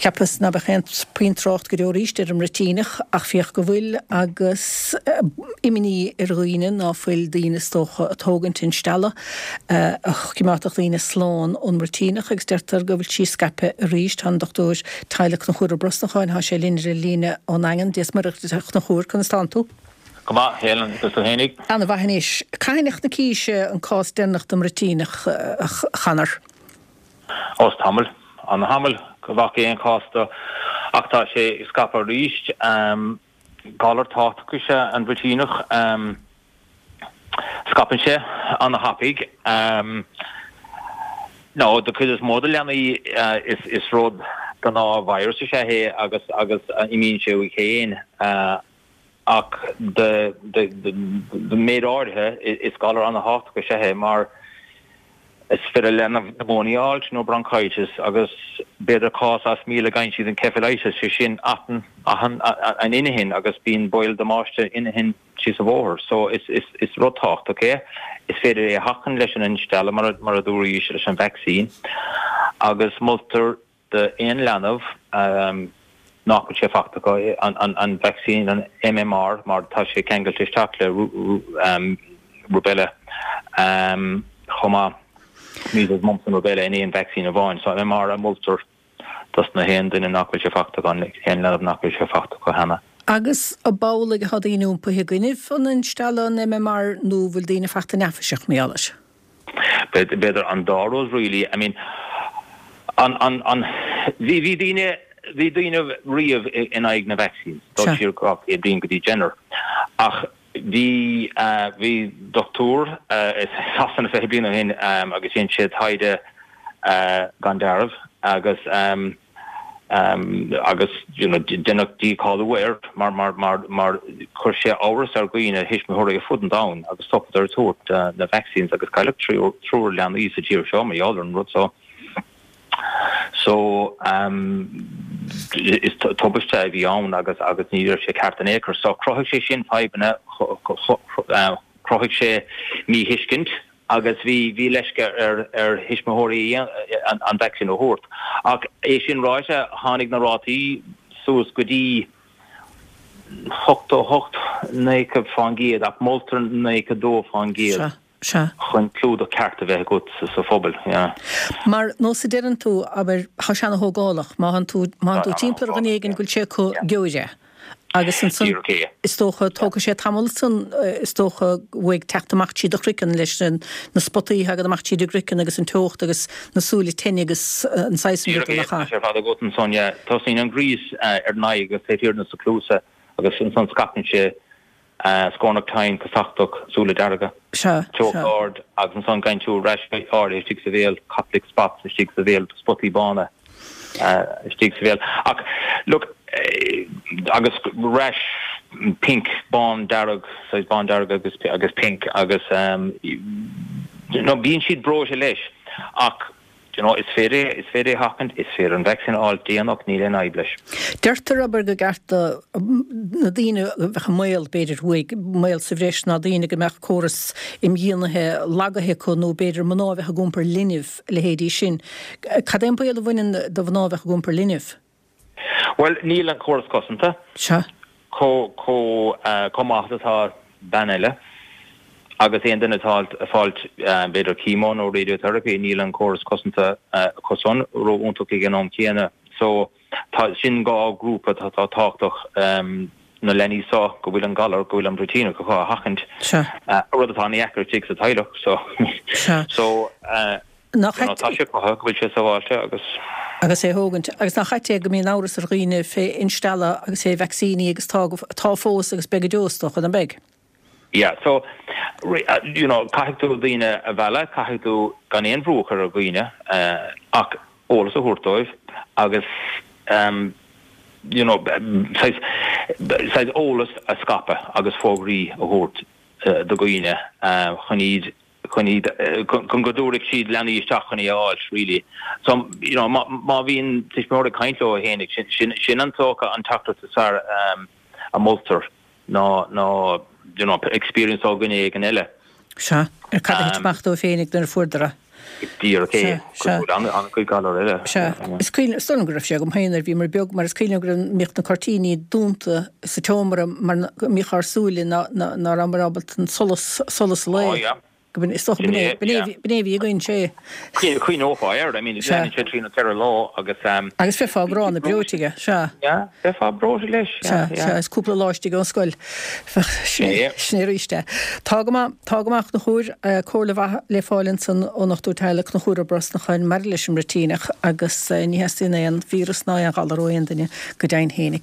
Cheapas ná beadh aon puinn trácht go deo arís ar an mbruitíneach ach féach go bhfuil agus imní ar dhaoine ná fuil daoine is dócha ag tógaint instealladh a choimeádfadh daoine slán ón mbruitíneach agus deirtear go bhfuil sí scaipthe arís. Tá an Dochtúir Teaghlaigh Conchúr Ó Brosnacháin, tá sé linn ar an líne ón nDaingean. Dia is Muire duit a Chonchúir, conas tánn tú? Go maith, Helen, agus tú fhéinig? Ana mhaith anois. Cathain a chonaicís an cás deireanach den mbruitíneach, a Chonor? Ó is tamall, ana-thamall go bhfaca aon chás de ach tá sé ag scaipeadh arís. Galar tábhachtach is ea an bhruitíneach. Scaipeann sé ana-thapaidh. Nó do chuid is mó de leanaí is rud gnáth-virus is ea é agus agus imíonn sé uaidh féin. Ach do méid áirithe, is galar ana-thábhachtach is ea é mar is féidir le leanbh pneumonia a fháilt nó bronchitis agus b'fhéidir cás as 1,000 go bhfaigheann siad encephalitis, sé sin atann an inchinn agus bíonn baol damáiste inchinn síos an bhóthar. So is rud tábhachtach é. Is féidir é a sheachaint leis an instealladh mar a dúraís leis an vacsaín agus moltar d'aon leanbh nach bhfuil sé fachta acu an vacsaín, an MMR, mar tá sé ceangailte isteach le rubella chomh maith, measles, mumps and rubella in aon vacsaín amháin. So MMR a moltar dos na haon duine nach bhfuil sé fachta acu, aon leanbh nach bhfuil sé fachta acu cheana. Agus ab amhlaidh atá daoine iompaithe i gcoinnibh an instealladh, an MMR, nó bhfuil daoine fachta neafaiseach mar gheall air? B'fhéidir an dá rud really. I mean an, an, an, bhí, bhí daoine, bhí daoine riamh in aghaidh na vaccines, dul siar 200 bliain go dtí Jenner. Ach bhí, bhí dochtúir i Sasana 20 bliain ó shin agus dhein sé taighde gan dealramh agus, agus you know deineadh dícháiliú air mar mar mar mar chuir sé amhras ar dhaoine, thuismitheoirí ar fud an domhain agus stopadar ag tabhairt na vaccines agus cailleadh triúr leanaí sa tír seo mar gheall ar an rud so. So is tubaiste a bhí ann agus agus ní raibh sé ceart in aon chor. So chruthaigh sé sin fadhbanna, chruthaigh sé míthuiscint agus bhí bhí leisce ar ar thuismitheoirí an vacsaín a thabhairt. Ach é sin ráite, tháinig na rátaí suas go dtí 88, 90% ach moltar 92% chun clúdach ceart a bheith agat sa phobal. Yeah. Mar nós a deireann tú, abair, tá sé ana-thógálach, má thánn tú má thánn tú timpeall ar dhuine éigin go bhfuil sé acu gheobhair é. Agus ansan, is dócha, tógfaidh sé tamall ansan, is dócha, uaidh teacht amach tríd do chraiceann leis na spotaí a thagann amach tríd an gcraiceann agus an teocht agus na súile tinn agus an saghas san rudaí nach ea? Díreach é, tá sé ar fad agat ansan, yeah. Tosaíonn an gríos ar an aghaidh agus taobh thiar de na cluasa agus ansan scaipeann sé scornach tinn, casachtach, súile dearga, teocht ard agus ansan gheibheann tú rash áirithe istigh sa bhéal, Koplik spots istigh sa bhéal, spotaí bána. istigh sa bhéal. Ach look, agus rash pink, bán dearg, saghas bán dearg agus agus pink agus you know bíonn siad breoite leis ach you know is féidir is féidir é a sheachaint, is féidir an vacsaín a fháil déanach, níl aon fhadhb leis. Deirtear, abair, gur ceart do na daoine a bheadh i mbaol, b'fhéidir, uaidh, mbaol sa bhreis ná daoine go mbeadh córas imdhíonaithe lagaithe acu nó b'fhéidir mná a bheadh ag iompar linbh, a leithéidí sin. Cad é an baol a bhaineann do mhná a bheadh ag iompar linbh? Bhuel, níl an córas cosanta Sea. chomh, chomh, chomh maith is atá bean eile. Agus aon duine atá ag fáilt, b'fhéidir chemo nó radiotherapy, níl an córas cosanta acu san ró-iontach ag an am céanna. So, tá, sin dhá ghrúpa atá tábhachtach, na leanaí seo go bhfuil an galar, go bhfuil an bruitíneach acu a sheachaint, rud atá ana-dheacair istigh sa teaghlach. So, Sea. so, Nach you know, tá sé cruthaithe go bhfuil sé sábháilte agus. Agus é a thógaint. Agus nach ait é go mbíonn amhras ar dhaoine fé instealladh agus fé vacsaíní agus tá, tá fós agus beidh go deo is dócha, nach mbeidh? Yeah, so, you know, caithfidh tú daoine a mhealladh, caithfidh tú gan aon bhrú a chur ar dhaoine ach eolas a thabhairt dóibh agus you know, saghas, saghas eolas a scaipeadh agus fógraí a thabhairt do dhaoine chun iad, chun iad, chun go dtabharfaidh siad leanaí isteach chun é a fháilt really. So, you know, má, má bhíonn tuismitheoir ag caint leo fhéinig, sin, sin, sin an dócha an teachtaireacht is fearr a moltar. ná ná you know experience ó dhuine éigin eile. Sea, ar cad a thit amach dóibh féinig nuair a fuaireadar é. Díreach é, cosúil le an-chuid galar eile. Sea. Is cuimhin, is dóigh liom go raibh sé agam féin nuair a bhíomar beag, mar is cuimhin liom go raibh, mbíodh na cuirtíní dúnta sa tseomra mar go mbíodh ár súile ná, ná, ná rabhamar ábalta an solas, solas an lae. Ó yeah. Go b'in, is dócha b'in é, b'in é, b'in é a bhí againn, sé. Chuimhneofá air, I mean, leanann sé trí nó 4 lá agus. Agus bheifeá gránna breoite aige, sea. Yeah, bheifeá breoite leis, yeah, yeah. Sea, sea, is cúpla lá istigh ón scoil. Sin é, sin é arís é. Tá go maith, tá go maith, a Chonchúir, comhairle mhaith le fáil ansan ón ndochtúir teaghlaigh Conchúr Ó Brosnacháin maidir leis an mbruitíneach agus ní theastaíonn aon víreas ná aon ghalar ó aon duine go deimhin fhéinig.